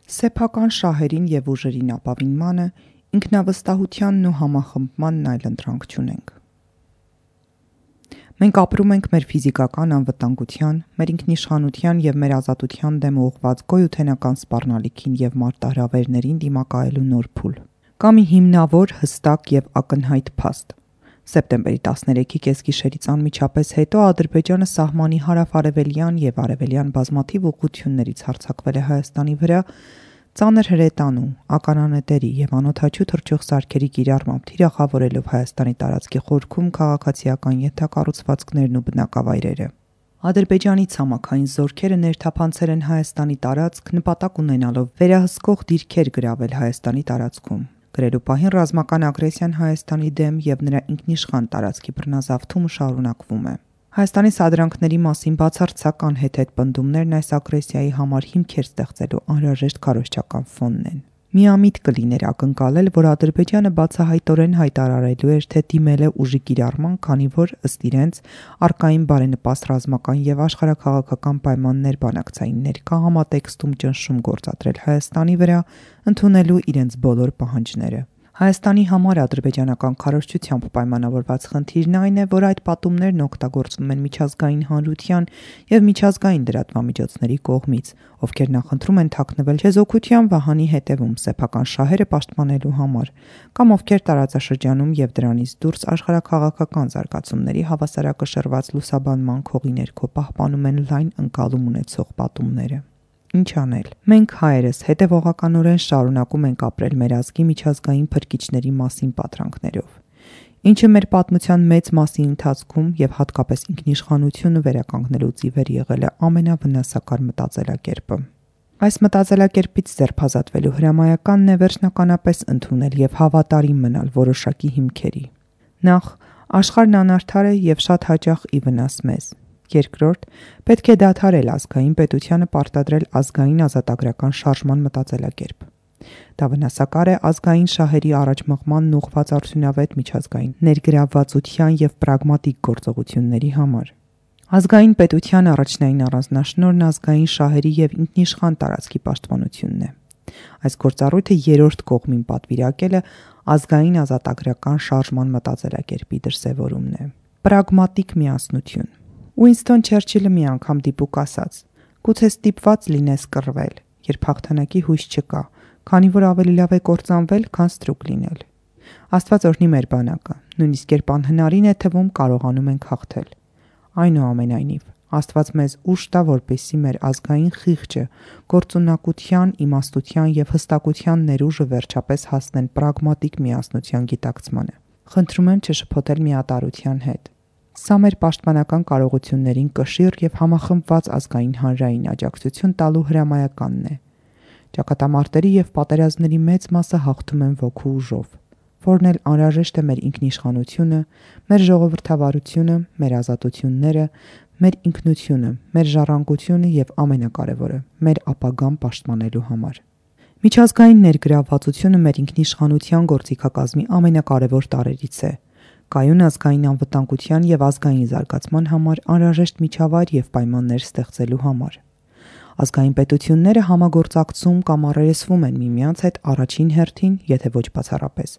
Սեփական շահերին և ուժերին ապավինմանը, ինքնավստահությանն ու համախմբմանն այլընտրանք չունենք։ Մենք ապրում ենք մեր ֆիզիկական անվտանգության, մեր ինքնիշխանության և մեր ազատության դեմ ուղղված գոյութենական սպառնալիքին և մարտահրավերներին դիմակայելու նոր փուլ։ Կա մի հիմնավոր, հստակ և ակնհայտ փաստ։ Սեպտեմբերի 13-ի կեսգիշերից անմիջապես հետո Ադրբեջանը սահմանի հարավ-արևելյան և արևելյան բազմաթիվ ուղղություններից հարձակվել է Հայաստանի վրա, ծանր հրետանու, ականանետերի և անօդաչու թռչող սարքերի կիրառմամբ թիրախավորելով Հայաստանի տարածքի խորքում քաղաքացիական ենթակառուցվածքներն ու բնակավայրերը։ Ադրբեջանի ցամաքային զորքերը ներթափանցել են Հայաստանի տարածք՝ նպատակ ունենալով վերահսկող դիրքեր գրավել Հայաստանի տարածքում։ Գրելու պահին ռազմական ագրեսիան Հայաստանի դեմ և նրա ինքնիշխան տարածքի բռնազավթումը շարունակվում է։ Հայաստանի սադրանքների մասին բացարձակ անհեթեթ պնդումներն այս ագրեսիայի համար հիմքեր ստեղծելու անհրաժեշտ քարոզչական ֆոնն են։ Միամիտ կլիներ ակնկալել, որ Ադրբեջանը բացահայտորեն հայտարարելու էր, թե դիմել է ուժի կիրառման, քանի որ, ըստ իրենց, առկային բարենպաստ ռազմական և աշխարհաքաղաքական պայմաններ բանակցային ներկա համատեքստում ճնշում գործադրել Հայաստանի վրա, ընդունելու իրենց բոլոր պահանջները։ Հայաստանի համար ադրբեջանական քարոզչությամբ պայմանավորված խնդիրն այն է, որ այդ պատումներն օգտագործվում են միջազգային հանրության և միջազգային լրատվամիջոցների կողմից, ովքեր նախընտրում են թաքնվել չեզոքության վահանի հետևում սեփական շահերը պաշտպանելու համար, կամ ովքեր տարածաշրջանում և դրանից դուրս աշխարհաքաղաքական զարգացումների հավասարակշռված լուսաբանման քողի ներքո պահպանում են լայն ընկալում ունեցող պատումները։ Ինչ անել։ Մենք հայերս հետևողականորեն շարունակում ենք ապրել մեր ազգի միջազգային փրկիչների մասին պատրանքներով, ինչը մեր պատմության մեծ մասի ընթացքում և հատկապես ինքնիշխանությունը վերականգնելուց ի վեր եղել է ամենավնասակար մտածելակերպը։ Այս մտածելակերպից ձերբազատվելու հրամայականն է վերջնականապես ընդունել և հավատարիմ մնալ որոշակի հիմքերի։ Նախ, աշխարհն անարդար է և շատ հաճախ ի վնաս մեզ։ Երկրորդ, պետք է դադարել ազգային պետությանը պարտադրել ազգային ազատագրական շարժման մտածելակերպ։ Դա վնասակար է ազգային շահերի առաջմղմանն ուղղված արդյունավետ միջազգային ներգրավվածության և պրագմատիկ գործողությունների համար։ Ազգային պետության առաջնային առանձնաշնորհն ազգային շահերի և ինքնիշխան տարածքի պաշտպանությունն է։ Այս գործառույթը երրորդ կողմին պատվիրակելը ազգային ազատագրական շարժման մտածելակերպի դրսևորումն է։ Պրագմատիկ միասնություն։ Ուինսթոն Չերչիլը մի անգամ դիպուկ ասաց. «Գուցե ստիպված լինես կռվել, երբ հաղթանակի հույս չկա, քանի որ ավելի լավ է կործանվել, քան ստրուկ լինել»։ Աստված օրհնի մեր բանակը, նույնիսկ երբ անհնարին է թվում, կարողանում ենք հաղթել։ Այնուամենայնիվ, Աստված մեզ ուժ տա, որպեսզի մեր ազգային խիղճը, գործունակության, իմաստության և հստակության ներուժը վերջապես հասնեն պրագմատիկ միասնության գիտակցմանը։ Խնդրում եմ չշփոթել միատարրության հետ։ Սա մեր պաշտպանական կարողություններին կշիռ և համախմբված ազգային հանրային աջակցություն տալու հրամայականն է։ Ճակատամարտերի և պատերազմների մեծ մասը հաղթում են ոգու ուժով, որն էլ անհրաժեշտ է մեր ինքնիշխանությունը, մեր ժողովրդավարությունը, մեր ազատությունները, մեր ինքնությունը, մեր ժառանգությունը և ամենակարևորը՝ մեր ապագան պաշտպանելու համար։ Միջազգային ներգրավվածությունը մեր ինքնիշխանության գործիքակազմի ամենակարևոր տարրերից է։ Կայուն ազգային անվտանգության և ազգային զարգացման համար անհրաժեշտ միջավայր և պայմաններ ստեղծելու համար։ Ազգային պետությունները համագործակցում կամ առերեսվում են միմյանց հետ առաջին հերթին, եթե ոչ բացառապես,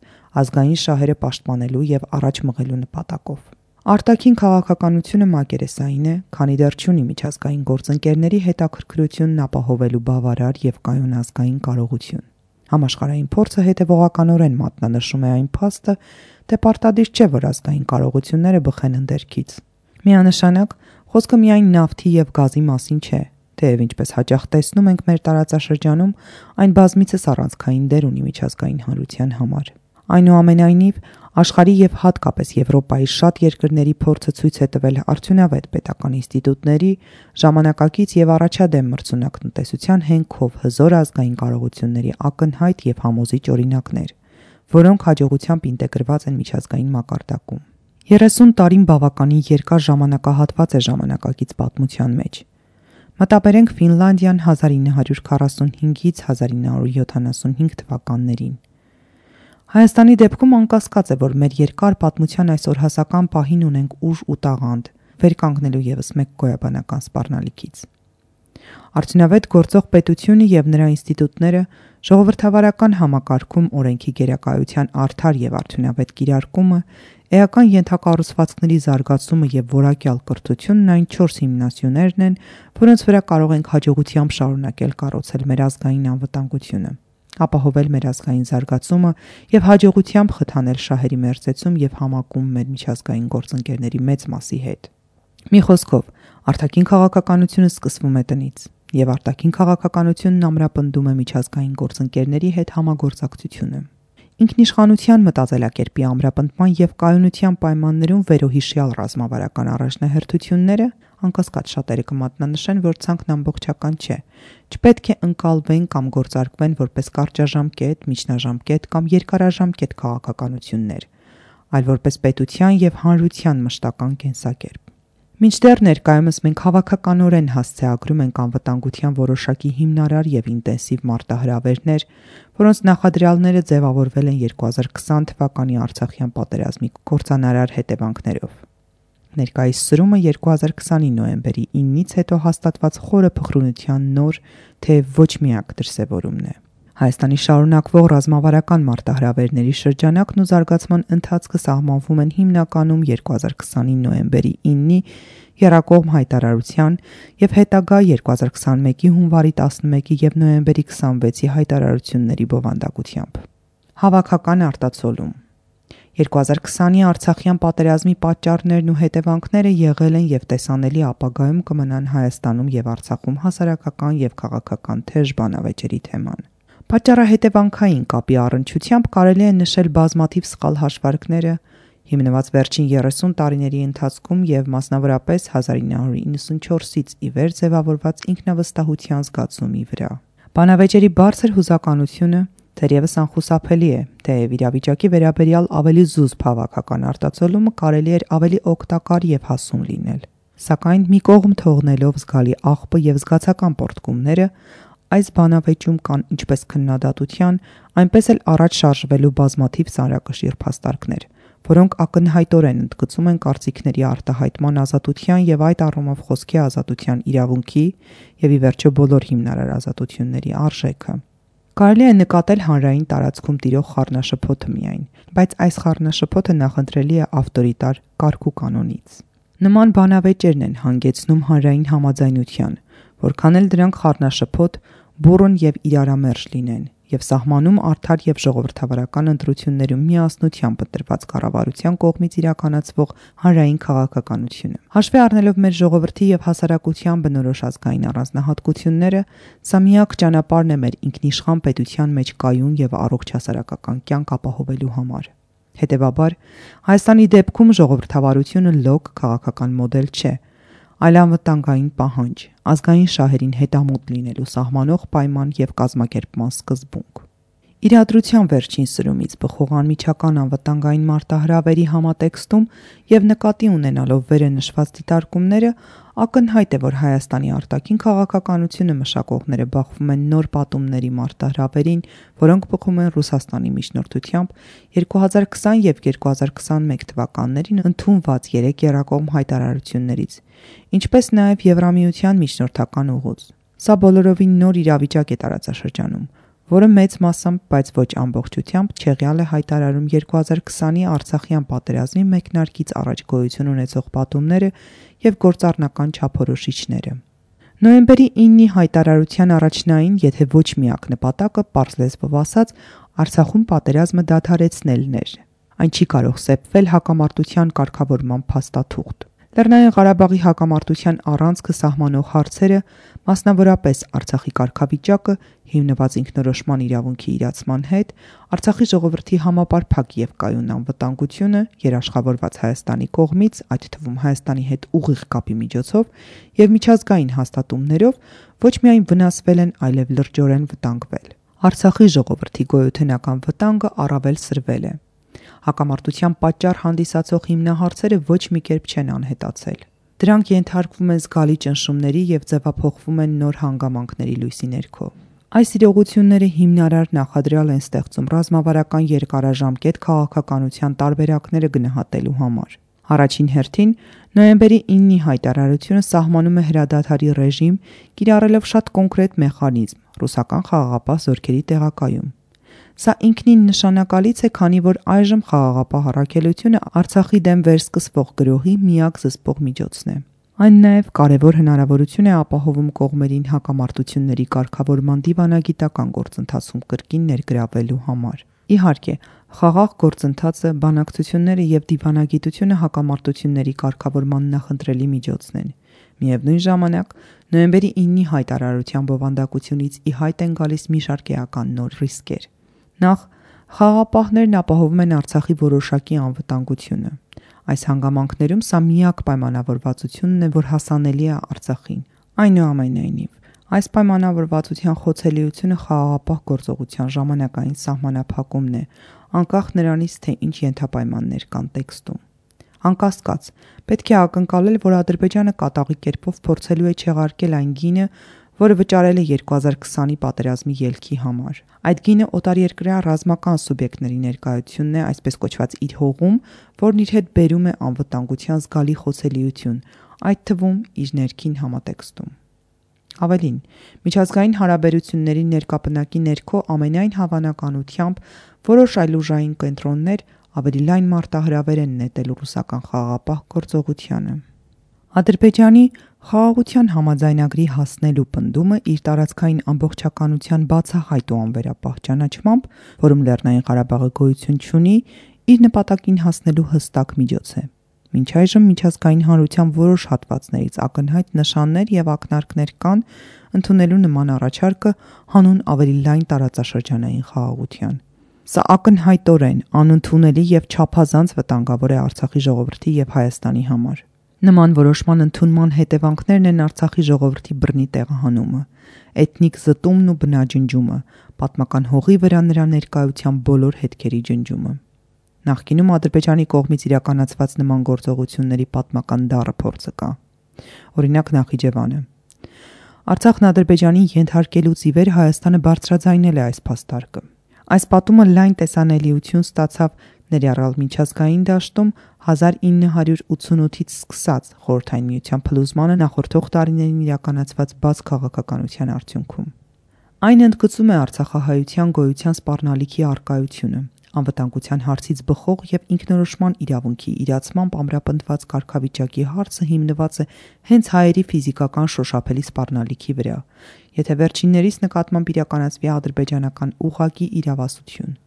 ազգային շահերը պաշտպանելու և առաջ մղելու նպատակով։ Արտաքին քաղաքականությունը մակերեսային է, քանի դեռ չունի միջազգային գործընկերների հետաքրքրությունն ապահովելու բավարար և կայուն ազգային կարողություն։ Համաշխարհային փորձը հետևողականորեն մատնանշում է այն փաստը, թե պարտադիր չէ, որ ազգային կարողությունները բխեն ընդերքից։ Միանշանակ, խոսքը միայն նավթի և գազի մասին չէ, թեև ինչպես հաճախ տեսնում ենք մեր տարածաշրջանում, այն բազմիցս առանցքային դեր ունի միջազգային հանրության համար։ Այնուամենայնիվ, աշխարհի և հատկապես Եվրոպայի շատ երկրների փորձը ցույց է տվել արդյունավետ պետական ինստիտուտների, ժամանակակից և առաջադեմ մրցունակ տնտեսության հենքով հզոր ազգային կարողությունների ակնհայտ և համոզիչ օրինակներ, որոնք հաջողությամբ ինտեգրված են միջազգային մակարդակում։ 30 տարին բավականին երկար ժամանակահատված է ժամանակակից պատմության մեջ։ Մտաբերենք Ֆինլանդիան 1945-ից 1975 թվականներին։ Հայաստանի դեպքում անկասկած է, որ մեր երկար պատմության այս օրհասական պահին ունենք ուժ ու տաղանդ՝ վեր կանգնելու ևս մեկ գոյաբանական սպառնալիքից։ Արդյունավետ գործող պետությունը եւ նրա ինստիտուտները ժողովրդավարական համակարգում օրենքի գերակայության արդար եւ արդյունավետ կիրարկումը, էական ենթակառուցվածքների զարգացումը եւ որակյալ կրթությունն այն 4 հիմնասյուներն են, որոնց վրա կարող ենք հաջողությամբ շարունակել կառուցել մեր ազգային անվտանգությունը, ապահովել մեր ազգային զարգացումը եւ հաջողությամբ խթանել շահերի մերձեցում եւ համակում մեր միջազգային գործընկերների մեծ մասի հետ։ Մի խոսքով, արտաքին քաղաքականությունը սկսվում է տնից, եւ արտաքին քաղաքականությունն ամրապնդում է միջազգային գործընկերների հետ համագործակցությունը։ Ինքնիշխանության մտածելակերպի ամրապնդման եւ կայունության պայմաններում վերոհիշյալ ռազմավարական առաջնահերթությունները, անկասկած շատերը կմատնանշեն, որ ցանկն ամբողջական չէ, չպետք է ընկալվեն կամ գործարկվեն որպես կարճաժամկետ, միջնաժամկետ կամ երկարաժամկետ քաղաքականություններ, այլ որպես պետության եւ հանրության մշտական կենսակերպ։ Մինչդեռ ներկայումս մենք հավաքականորեն հասցեագրում ենք անվտանգության որոշակի հիմնարար եւ ինտենսիվ մարտահրավերներ, որոնց նախադրյալները ձևավորվել են 2020 թվականի Արցախյան պատերազմի կործանարար հետևանքներով։ Ներկայիս սրումը 2020-ի նոյեմբերի 9-ից հետո հաստատված խորը փխրունության նոր, թե ոչ միակ դրսևորումն է։ Հայաստանի շարունակվող ռազմավարական մարտահրավերների շրջանակն ու զարգացման ընթացքը սահմանվում են հիմնականում 2020-ի նոյեմբերի 9-ի եռակողմ հայտարարության եւ հետագա 2021-ի հունվարի 11-ի եւ նոյեմբերի 26-ի հայտարարությունների բովանդակությամբ։ Հավաքական արտացոլում 2020-ի Արցախյան պատերազմի պատճառներն ու հետևանքները եղել են եւ տեսանելի ապագայում կմնան Հայաստանում եւ Արցախում հասարակական եւ քաղաքական թեժ բանավեճերի թեման։ Պատճառահետևանքային կապի առնչությամբ կարելի է նշել բազմաթիվ սխալ հաշվարկները, հիմնված վերջին 30 տարիների ընթացքում եւ մասնավորապես 1994-ից ի վեր ձևավորված ինքնավստահության զգացումի վրա։ Բանավեճերի բարձր հուզականությունը թերևս անխուսափելի է, թեև իրավիճակի վերաբերյալ ավելի զուսպ հավաքական արտացոլումը կարելի էր ավելի օգտակար եւ հասուն լինել։ Սակայն մի կողմ թողնելով զգալի աղբը եւ զգացական պորտկումները, այս բանավեճում կան ինչպես քննադատության, այնպես էլ առաջ շարժվելու բազմաթիվ ծանրակշիռ փաստարկներ, որոնք ակնհայտորեն ընդգծում են կարծիքների արտահայտման ազատության եւ այդ առումով խոսքի ազատության իրավունքի եւ ի վերջո բոլոր հիմնարար ազատությունների արժեքը։ Կարելի է նկատել հանրային տարածքում տիրող խառնաշփոթը միայն, բայց այս խառնաշփոթը նախընտրելի է ավտորիտար կարգ ու կանոնից։ Նման բանավեճերն են հանգեցնում հանրային համաձայնության, որքան էլ դրանք խառնաշփոթ, բուռն եւ իրարամերժ լինեն եւ սահմանում արդար եւ ժողովրդավարական ընտրություններում միասնությամբ ընտրված կառավարության կողմից իրականացվող հանրային քաղաքականությունը։ Հաշվի առնելով մեր ժողովրդի եւ հասարակության բնորոշ ազգային առանձնահատկությունները, սա միակ ճանապարհն է մեր ինքնիշխան պետության մեջ կայուն եւ առողջ հասարակական կյանք ապահովելու համար։ Հետևաբար, Հայաստանի դեպքում ժողովրդավարությունը լոկ քաղաքական մոդել չէ, այլ անվտանգային պահանջ, ազգային շահերին հետամուտ լինելու սահմանող պայման եւ կազմակերպման սկզբունք։ Իրադրության վերջին սրումից բխող անմիջական անվտանգային մարտահրավերի համատեքստում եւ նկատի ունենալով վերը նշված դիտարկումները, ակնհայտ է, որ Հայաստանի արտաքին քաղաքականությունը մշակողները բախվում են նոր պատումների մարտահրավերին, որոնք բխում են Ռուսաստանի միջնորդությամբ 2020 եւ 2021 թվականներին ընդունված 3 եռակողմ հայտարարություններից, ինչպես նաեւ Եվրամիության միջնորդական ուղուց։ Սա բոլորովին նոր իրավիճակ է տարածաշրջանում, որը մեծ մասամբ, բայց ոչ ամբողջությամբ չեղյալ է հայտարարում 2020-ի Արցախյան պատերազմի մեկնարկից առաջ գոյություն ունեցող պատումները եւ գործառնական չափորոշիչները։ Նոյեմբերի 9-ի հայտարարության առաջնային, եթե ոչ միակ նպատակը, պարզ լեզվով ասած, Արցախում պատերազմը դադարեցնելն էր։ Այն չի կարող սեպվել հակամարտության կարգավորման փաստաթուղթ։ Լեռնային Ղարաբաղի հակամարտության առանցքը սահմանող հարցերը, մասնավորապես Արցախի կարգավիճակը, հիմնված ինքնորոշման իրավունքի իրացման հետ, Արցախի ժողովրդի համապարփակ եւ կայուն անվտանգությունը, երաշխավորված Հայաստանի կողմից, այդ թվում Հայաստանի հետ ուղիղ կապի միջոցով եւ միջազգային հաստատումներով, ոչ միայն վնասվել են, այլև լրջորեն վտանգվել։ Արցախի ժողովրդի գոյութենական վտանգը առավել սրվել է։ Հակամարտության պատճառ հանդիսացող հիմնահարցերը ոչ մի կերպ չեն անհետացել։ Դրանք ենթարկվում են զգալի ճնշումների եւ ձևափոխվում են նոր հանգամանքների լույսի ներքո։ Այս իրողությունները հիմնարար նախադրյալ են ստեղծում ռազմավարական երկարաժամկետ քաղաքականության տարբերակները գնահատելու համար։ Առաջին հերթին նոյեմբերի 9-ի հայտարարությունը սահմանում է հրադադարի ռեժիմ, կիրառելով շատ կոնկրետ մեխանիզմ՝ ռուսական խաղաղապահ զորքերի տեղակայում։ Սա ինքնին նշանակալից է, քանի որ այժմ խաղաղապահ առաքելությունը Արցախի դեմ վերսկսվող գրոհի միակ զսպող միջոցն է։ Այն նաև կարևոր հնարավորություն է ապահովում կողմերին հակամարտությունների կարգավորման դիվանագիտական գործընթացում կրկին ներգրավելու համար։ Իհարկե, խաղաղ գործընթացը, բանակցությունները եւ դիվանագիտությունը հակամարտությունների կարգավորման նախընտրելի միջոցն են։ Միևնույն ժամանակ, նոյեմբերի 9-ի հայտարարության բովանդակությունից ի հայտ են գալիս մի շարք էական նոր ռիսկեր։ Նախ, խաղաղապահներն ապահովում են Արցախի որոշակի անվտանգությունը։ Այս հանգամանքներում սա միակ պայմանավորվածությունն է, որ հասանելի է Արցախին։ Այնուամենայնիվ, այս պայմանավորվածության խոցելիությունը խաղաղապահ գործողության ժամանակային սահմանափակումն է, անկախ նրանից, թե ինչ ենթապայմաններ կան տեքստում։ Անկասկած, պետք է ակնկալել, որ Ադրբեջանը կատաղի կերպով փորձելու է չեղարկել այն գինը, որը վճարել է 2020-ի պատերազմի ելքի համար։ Այդ գինը օտարերկրյա ռազմական սուբյեկտների ներկայությունն է, այսպես կոչված իր հողում, որն իր հետ բերում է անվտանգության զգալի խոցելիություն, այդ թվում իր ներքին համատեքստում։ Ավելին, միջազգային հարաբերությունների ներկապնակի ներքո ամենայն հավանականությամբ որոշ այլուժային կենտրոններ ավելի լայն մարտահրավեր են նետել ռուսական խաղաղապահ գործողությանը։ Ադրբեջանի խաղաղության համաձայնագրի հասնելու պնդումը իր տարածքային ամբողջականության բացահայտ ու անվերապահ ճանաչմամբ, որում Լեռնային Ղարաբաղը գոյություն չունի, իր նպատակին հասնելու հստակ միջոց է։ Մինչ այժմ միջազգային հանրության որոշ հատվածներից ակնհայտ նշաններ եւ ակնարկներ կան ընդունելու նման առաջարկը հանուն ավելի լայն տարածաշրջանային խաղաղության։ Սա ակնհայտորեն անընդունելի եւ չափազանց վտանգավոր է Արցախի ժողովրդի եւ Հայաստանի համար։ Նման որոշման ընդունման հետևանքներն են Արցախի ժողովրդի բռնի տեղահանումը, էթնիկ զտումն ու բնաջնջումը, պատմական հողի վրա նրա ներկայության բոլոր հետքերի ջնջումը։ Նախկինում Ադրբեջանի կողմից իրականացված նման գործողությունների պատմական դառը փորձը կա։ Օրինակ Նախիջևանը։ Արցախն Ադրբեջանին ենթարկելուց ի վեր Հայաստանը բարձրաձայնել է այս փաստարկը։ Այս պատումը լայն տեսանելիություն ստացավ ներառյալ միջազգային դաշտում 1988-ից սկսած Խորհրդային Միության փլուզմանը նախորդող տարիներին իրականացված բաց քաղաքականության արդյունքում։ Այն ընդգծում է արցախահայության գոյության սպառնալիքի առկայությունը, անվտանգության հարցից բխող եւ ինքնորոշման իրավունքի իրացմամբ ամրապնդված կարգավիճակի հարցը հիմնված է հենց հայերի ֆիզիկական շոշափելի սպառնալիքի վրա, եթե վերջիններիս նկատմամբ իրականացվի ադրբեջանական ուղղակի իրավասություն։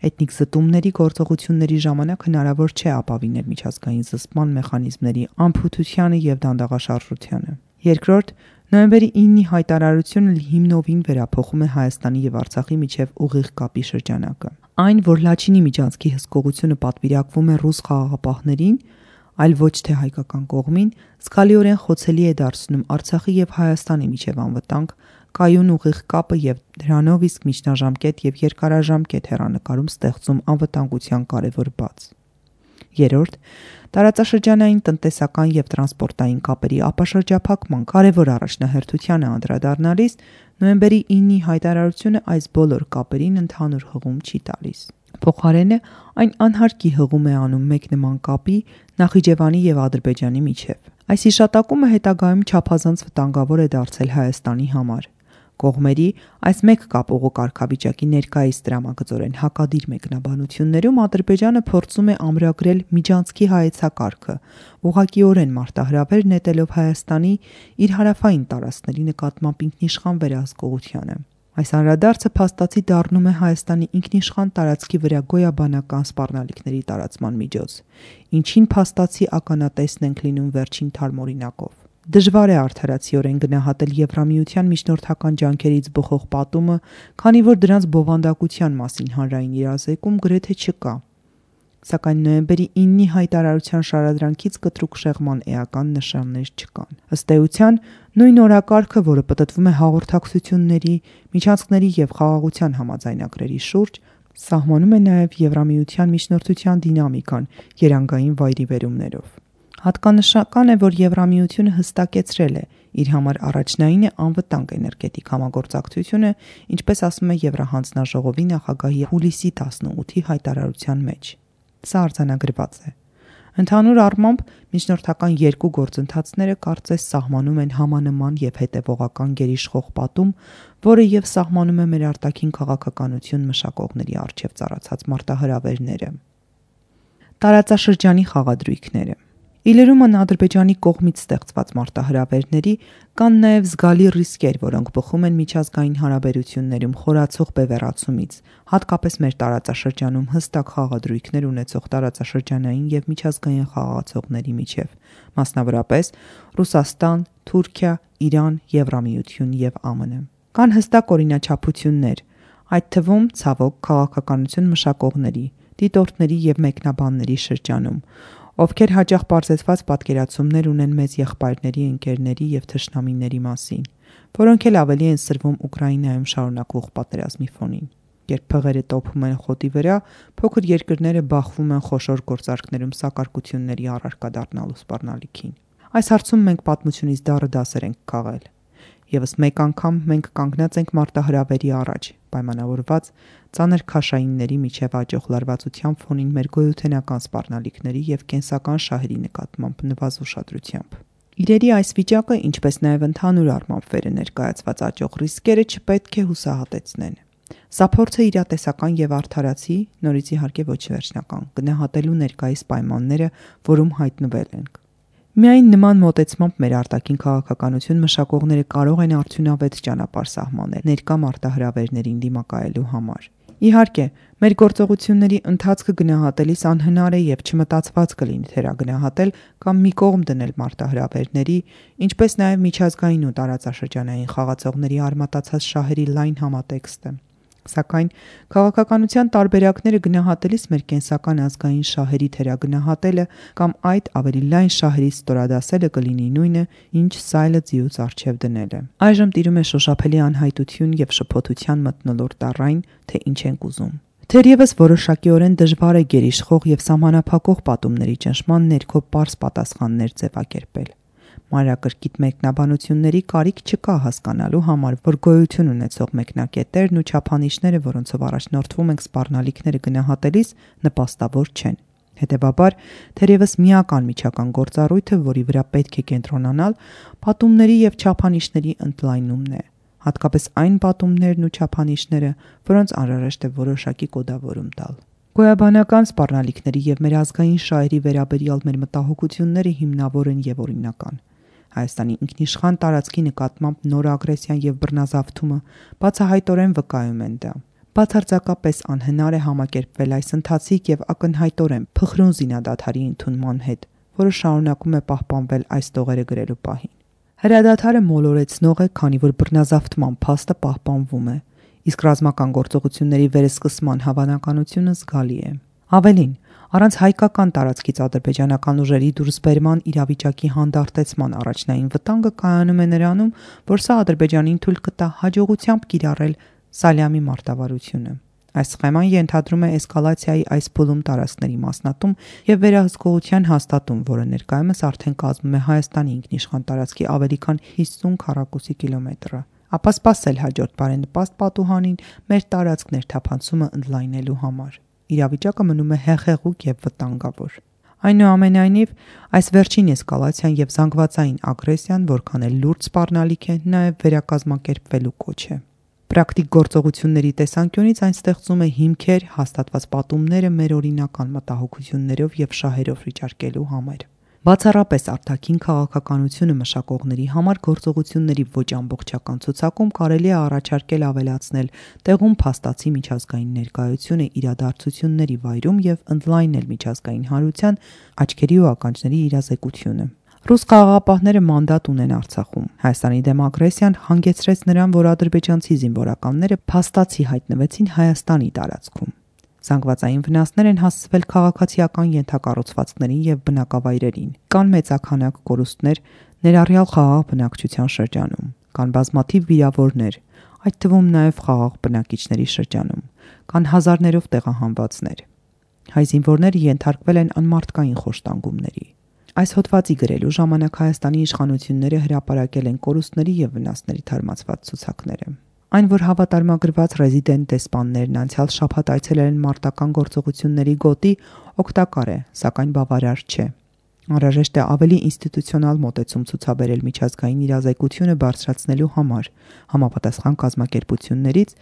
Էթնիկ զտումների գործողությունների ժամանակ հնարավոր չէ ապավինել միջազգային զսպման մեխանիզմների անփութությանը եւ դանդաղաշարժությանը։ Երկրորդ, նոյեմբերի 9-ի հայտարարությունը հիմնովին վերափոխում է Հայաստանի եւ Արցախի միջև ուղիղ կապի շրջանակը։ Այն, որ Լաչինի միջանցքի հսկողությունը պատվիրակվում է ռուս խաղաղապահներին, այլ ոչ թե հայկական կողմին, զգալիորեն խոցելի է դարձնում Արցախի եւ Հայաստանի միջև անվտանգ կայուն ուղիղ կապը եւ դրանով իսկ միջնաժամկետ եւ երկարաժամկետ հեռանկարում ստեղծում անվտանգության կարևոր բաց։ Երրորդ, տարածաշրջանային տնտեսական եւ տրանսպորտային կապերի ապաշրջափակման կարևոր առաջնահերթությանը անդրադառնալիս նոյեմբերի 9-ի հայտարարությունը այս բոլոր կապերին ընդհանուր հղում չի տալիս։ Փոխարենը այն անհարկի հղում է անում մեկ նման կապի Նախիջևանի եւ Ադրբեջանի միջև։ Այս հիշատակումը հետագայում չափազանց վտանգավոր է դարձել Հայաստանի համար։ Կողմերի այս մեկ կապողու կարգավիճակի ներկայիս դրամագծորեն հակադիր մեկնաբանություններում Ադրբեջանը փորձում է ամրագրել միջանցքի հայեցակարգը, ուղղակիորեն մարտահրավեր նետելով Հայաստանի իր հարավային տարածքների նկատմամբ ինքնիշխան վերահսկողությանը։ Այս անդրադարձը փաստացի դառնում է Հայաստանի ինքնիշխան տարածքի վրա գոյաբանական սպառնալիքների տարածման միջոց, ինչին փաստացի ականատեսն ենք լինում վերջին թարմօրինակով։ Դժվար է արդարացիորեն գնահատել Եվրամիության միջնորդական ջանքերից բխող պատումը, քանի որ դրանց բովանդակության մասին հանրային իրազեկում գրեթե չկա։ Սակայն նոյեմբերի 9-ի հայտարարության շարադրանքից կտրուկ շեղման էական նշաններ չկան։ Ըստ էության, նույն օրակարգը, որը պտտվում է հաղորդակցությունների, միջանցքների եւ խաղաղության համաձայնագրերի շուրջ, սահմանում է նաեւ Եվրամիության միջնորդության դինամիկան երանգային վայրիվերումներով։ Հատկանշական է, որ Եվրամիությունը հստակեցրել է իր համար առաջնային է անվտանգ էներգետիկ համագործակցությունը, ինչպես ասում է Եվրահանձնաժողովի նախագահի հուլիսի 18-ի հայտարարության մեջ։ Սա արձանագրված է։ Ընդհանուր առմամբ միջնորդական երկու գործընթացները կարծես սահմանում են համանման եւ հետեւողական գերիշխող պատում, որը եւ սահմանում է մեր արտաքին քաղաքականություն մշակողների առջև ծառացած մարտահրավերները։ Տարածաշրջանի խաղադրույքները Իլերումն Ադրբեջանի կողմից ստեղծված մարտահրավերների կան նաև զգալի ռիսկեր, որոնք բխում են միջազգային հարաբերություններում խորացող բևեռացումից, հատկապես մեր տարածաշրջանում հստակ խաղադրույքներ ունեցող տարածաշրջանային եւ միջազգային խաղացողների միջև, մասնավորապես Ռուսաստան, Թուրքիա, Իրան, Եվրամիություն եւ ԱՄՆ։ Կան հստակ օրինաչափություններ, այդ թվում ցավոք քաղաքականություն մշակողների, դիտորդների եւ մեկնաբանների շրջանում, ովքեր հաճախ պարզեցված պատկերացումներ ունեն մեծ եղբայրների, ընկերների եւ թշնամիների մասին, որոնք էլ ավելի են սրվում Ուկրաինայում շարունակվող պատերազմի ֆոնին։ Երբ փղերը տոփում են խոտի վրա, փոքր երկրները բախվում են խոշոր գործարքներում սակարկությունների առարկա դառնալու սպառնալիքին։ Այս հարցում մենք պատմությունից դառը դասեր ենք քաղել։ Եվս մեկ անգամ մենք կանգնած ենք մարտահրավերի առաջ, պայմանավորված ծանր քաշայինների միջև աճող լարվածության ֆոնին մեր գոյութենական սպառնալիքների եւ կենսական շահերի նկատմամբ նվազ ուշադրությամբ։ Իրերի այս վիճակը, ինչպես նաեւ ընդհանուր առմամբ վերը ներկայացված աճող ռիսկերը չպետք է հուսահատեցնեն։ Սա փորձ է իրատեսական եւ արդարացի, նորից իհարկե ոչ վերջնական, գնահատելու ներկայիս պայմանները, որում հայտնվել ենք։ Միայն նման մոտեցմամբ մեր արտաքին քաղաքականություն մշակողները կարող են արդյունավետ ճանապարհ սահմանել ներկա մարտահրավերներին դիմակայելու համար։ Իհարկե, մեր գործողությունների ընթացքը գնահատելիս անհնար է եւ չմտածված կլինի թերագնահատել կամ մի կողմ դնել մարտահրավերների, ինչպես նաեւ միջազգային ու տարածաշրջանային խաղացողների արմատացած շահերի լայն համատեքստը։ Սակայն քաղաքականության տարբերակները գնահատելիս մեր կենսական ազգային շահերի թերագնահատելը կամ այդ ավելի լայն շահերից ստորադասելը կլինի նույնը, ինչ սայլը ձիուց առջև դնելը։ Այժմ տիրում է շոշափելի անհայտություն եւ շփոթության մթնոլորտ առայն, թե ինչ ենք ուզում։ Թերևս որոշակիորեն դժվար է գերիշխող եւ սահմանափակող պատումների ճնշման ներքո պարզ պատասխաններ ձևակերպել։ Մանրակրկիտ մեկնաբանությունների կարիք չկա հասկանալու համար, որ գոյություն ունեցող մեկնակետերն ու չափանիշները, որոնցով առաջնորդվում ենք սպառնալիքները գնահատելիս, նպաստավոր չեն։ Հետևաբար, թերևս միական միջական գործառույթը, որի վրա պետք է կենտրոնանալ, պատումների եւ չափանիշների ընդլայնումն է, հատկապես այն պատումներն ու չափանիշները, որոնց անհրաժեշտ է որոշակի կոդավորում տալ։ Գոյաբանական սպառնալիքների եւ մեր ազգային շահերի վերաբերյալ մեր մտահոգությունները հիմնավոր են եւ օրինական։ Հայաստանի ինքնիշխան տարածքի նկատմամբ նոր ագրեսիան եւ բռնազավթումը բացահայտորեն վկայում են դա։ Բացարձակապես անհնար է համակերպվել այս ընթացիկ եւ ակնհայտորեն փխրուն զինադադարի ընդունման հետ, որը շարունակում է պահպանվել այս տողերը գրելու պահին։ Հրադադարը մոլորեցնող է, քանի որ բռնազավթման փաստը պահպանվում է, իսկ ռազմական գործողությունների վերսկսման հավանականությունը զգալի է։ Ավելին, առանց հայկական տարածքից ադրբեջանական ուժերի դուրսբերման իրավիճակի հանդարտեցման առաջնային վտանգը կայանում է նրանում, որ սա Ադրբեջանին թույլ կտա հաջողությամբ կիրառել Սալյամի մարտավարությունը։ Այս սխեման ենթադրում է էսկալացիայի այս փուլում տարածքների մասնատում եւ վերահսկողության հաստատում, որը ներկայումս արդեն կազմում է Հայաստանի ինքնիշխան տարածքի ավելի քան 50 քառակուսի կիլոմետրը։ Ապա սպասել հաջորդ բարենպաստ պատուհանին մեր տարածք ներթափանցումը ընդլայնելու համար։ Իրավիճակը մնում է հեղեղուկ եւ վտանգավոր։ Այնուամենայնիվ, այս վերջին էսկալացիան եւ զանգվածային ագրեսիան, որքան էլ լուրջ սպառնալիք է, նաեւ վերակազմակերպվելու կոչ է։ Պրակտիկ գործողությունների տեսանկյունից այն ստեղծում է հիմքեր հաստատված պատումները մեր օրինական մտահոգություններով եւ շահերով վիճարկելու համար։ Բացառապես արտաքին քաղաքականությունը մշակողների համար գործողությունների ոչ ամբողջական ցուցակում կարելի է առաջարկել ավելացնել տեղում փաստացի միջազգային ներկայությունը իրադարձությունների վայրում եւ ընդլայնել միջազգային հանրության աչքերի ու ականջների իրազեկությունը։ Ռուս խաղաղապահները մանդատ ունեն Արցախում։ Հայաստանի դեմ ագրեսիան հանգեցրեց նրան, որ ադրբեջանցի զինվորականները փաստացի հայտնվեցին Հայաստանի տարածքում։ Զանգվածային վնասներ են հասցվել քաղաքացիական ենթակառուցվածքներին եւ բնակավայրերին։ Կան մեծաքանակ կորուստներ ներառյալ խաղաղ բնակչության շրջանում։ Կան բազմաթիվ վիրավորներ, այդ թվում նաեւ խաղաղ բնակիչների շրջանում։ Կան հազարներով տեղահանվածներ։ Հայ զինվորները ենթարկվել են անմարդկային խոշտանգումների։ Այս հոդվածի գրելու ժամանակ Հայաստանի իշխանությունները հրապարակել են կորուստների եւ վնասների թարմացված ցուցակները։ Այն, որ հավատարմագրված ռեզիդենտ դեսպաններն անցյալ շաբաթ այցելել են մարտական գործողությունների գոտի, օգտակար է, սակայն բավարար չէ։ Անհրաժեշտ է ավելի ինստիտուցիոնալ մոտեցում ցուցաբերել միջազգային իրազեկությունը բարձրացնելու համար, համապատասխան կազմակերպություններից,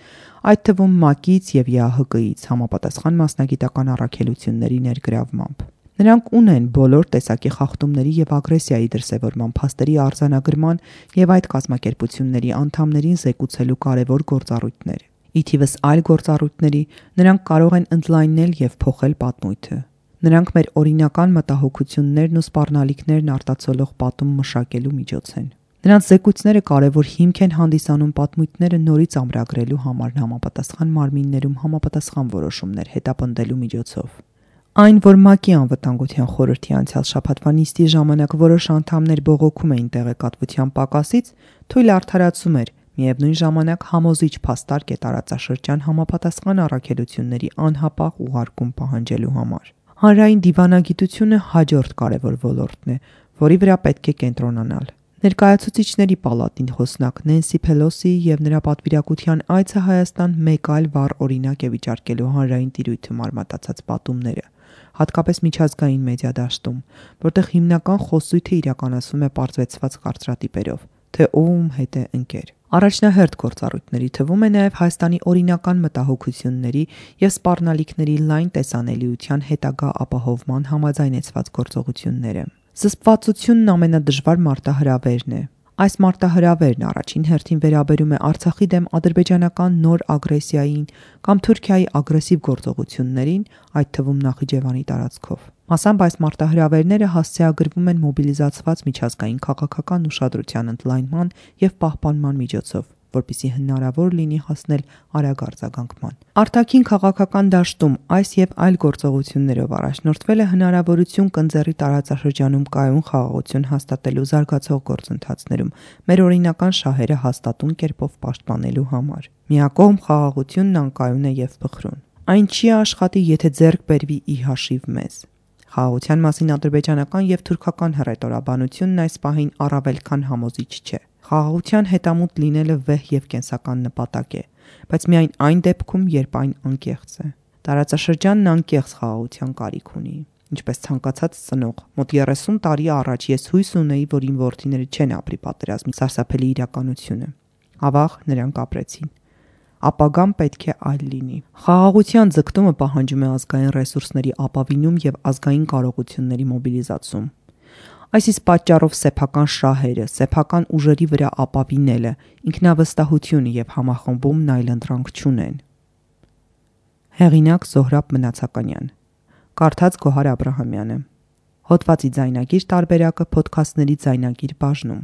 այդ թվում ՄԱԿ-ից եւ ԵԱՀԿ-ից, համապատասխան մասնագիտական առաքելությունների ներգրավմամբ։ Նրանք ունեն բոլոր տեսակի խախտումների եւ ագրեսիայի դրսեւորման փաստերի արձանագրման եւ այդ կազմակերպությունների անդամներին զեկուցելու կարևոր գործառույթներ։ Ի թիվս այլ գործառույթների, նրանք կարող են ընդլայնել եւ փոխել պատմույթը։ Նրանք մեր օրինական մտահոգություններն ու սպառնալիքներն արտացոլող պատում մշակելու միջոց են։ Նրանց զեկույցները կարևոր հիմք են հանդիսանում պատմույթները նորից ամրագրելու համար համապատասխան մարմիններում համապատասխան որոշումներ հետապնդելու միջոցով։ Այն, որ ՄԱԿ-ի անվտանգության խորհրդի անցյալ շաբաթվա նիստի ժամանակ որոշ անդամներ բողոքում էին տեղեկատվության պակասից, թույլ արդարացում էր, միևնույն ժամանակ համոզիչ փաստարկ է տարածաշրջան համապատասխան առաքելությունների անհապաղ ուղարկում պահանջելու համար։ Հանրային դիվանագիտությունը հաջորդ կարևոր ոլորտն է, որի վրա պետք է կենտրոնանալ։ Ներկայացուցիչների պալատին խոսնակ Նենսի Փելոսիի եւ նրա պատվիրակության այցը Հայաստան մեկ այլ վառ օրինակ է վիճարկելու հանրային տիրույթում արմատացած պատումները, հատկապես միջազգային մեդիա դաշտում, որտեղ հիմնական խոսույթը իրականացվում է պարզվեցված կարծրատիպերով, թե ում հետ է ընկեր։ Առաջնահերթ գործառույթների թվում է նաև Հայաստանի օրինական մտահոգությունների եւ սպառնալիքների լայն տեսանելիության հետագա ապահովման համաձայնեցված գործողությունները։ Զսպվածությունն ամենադժվար մարտահրավերն է։ Այս մարտահրավերն առաջին հերթին վերաբերում է Արցախի դեմ ադրբեջանական նոր ագրեսիային կամ Թուրքիայի ագրեսիվ գործողություններին, այդ թվում Նախիջևանի տարածքով։ Մասամբ այս մարտահրավերները հասցեագրվում են մոբիլիզացված միջազգային քաղաքական ուշադրության ընդլայնման եւ պահպանման միջոցով, որպեսզի հնարավոր լինի հասնել արագ արձագանքման։ Արտաքին քաղաքական դաշտում այս եւ այլ գործողություններով առաջնորդվել է հնարավորություն կնձեռի տարածաշրջանում կայուն խաղաղություն հաստատելու զարգացող գործընթացներում մեր օրինական շահերը հաստատուն կերպով պաշտպանելու համար։ Միակողմ խաղաղությունն անկայուն է եւ փխրուն։ Այն չի աշխատի, եթե ձեռք բերվի ի հաշիվ մեզ։ Խաղաղության մասին ադրբեջանական եւ թուրքական հռետորաբանությունն այս պահին առավել քան համոզիչ չէ։ Խաղաղության հետամուտ լինելը վեհ եւ կենսական նպատակ է, բայց միայն այն դեպքում, երբ այն անկեղծ է։ Տարածաշրջանն անկեղծ խաղաղության կարիք ունի, ինչպես ցանկացած ծնող։ Մոտ 30 տարի առաջ ես հույս ունեի, որ իմ որդիները չեն ապրի պատերազմի սարսափելի իրականությունը։ Ավաղ նրանք ապրեցին։ Ապագան պետք է այլ լինի։ Խաղաղության ձգտումը պահանջում է ազգային ռեսուրսների ապավինում եւ ազգային կարողությունների մոբիլիզացում։ Այս իսկ պատճառով սեփական շահերը, սեփական ուժերի վրա ապավինելը, ինքնավստահությունը եւ համախմբումն այլընտրանք չունեն։ Հեղինակ Զոհրաբ Մնացականյան, կարդաց Գոհար Աբրահամյանը։ Հոդվածի ձայնագիր տարբերակը փոդքասթների ձայնագիր բաժնում։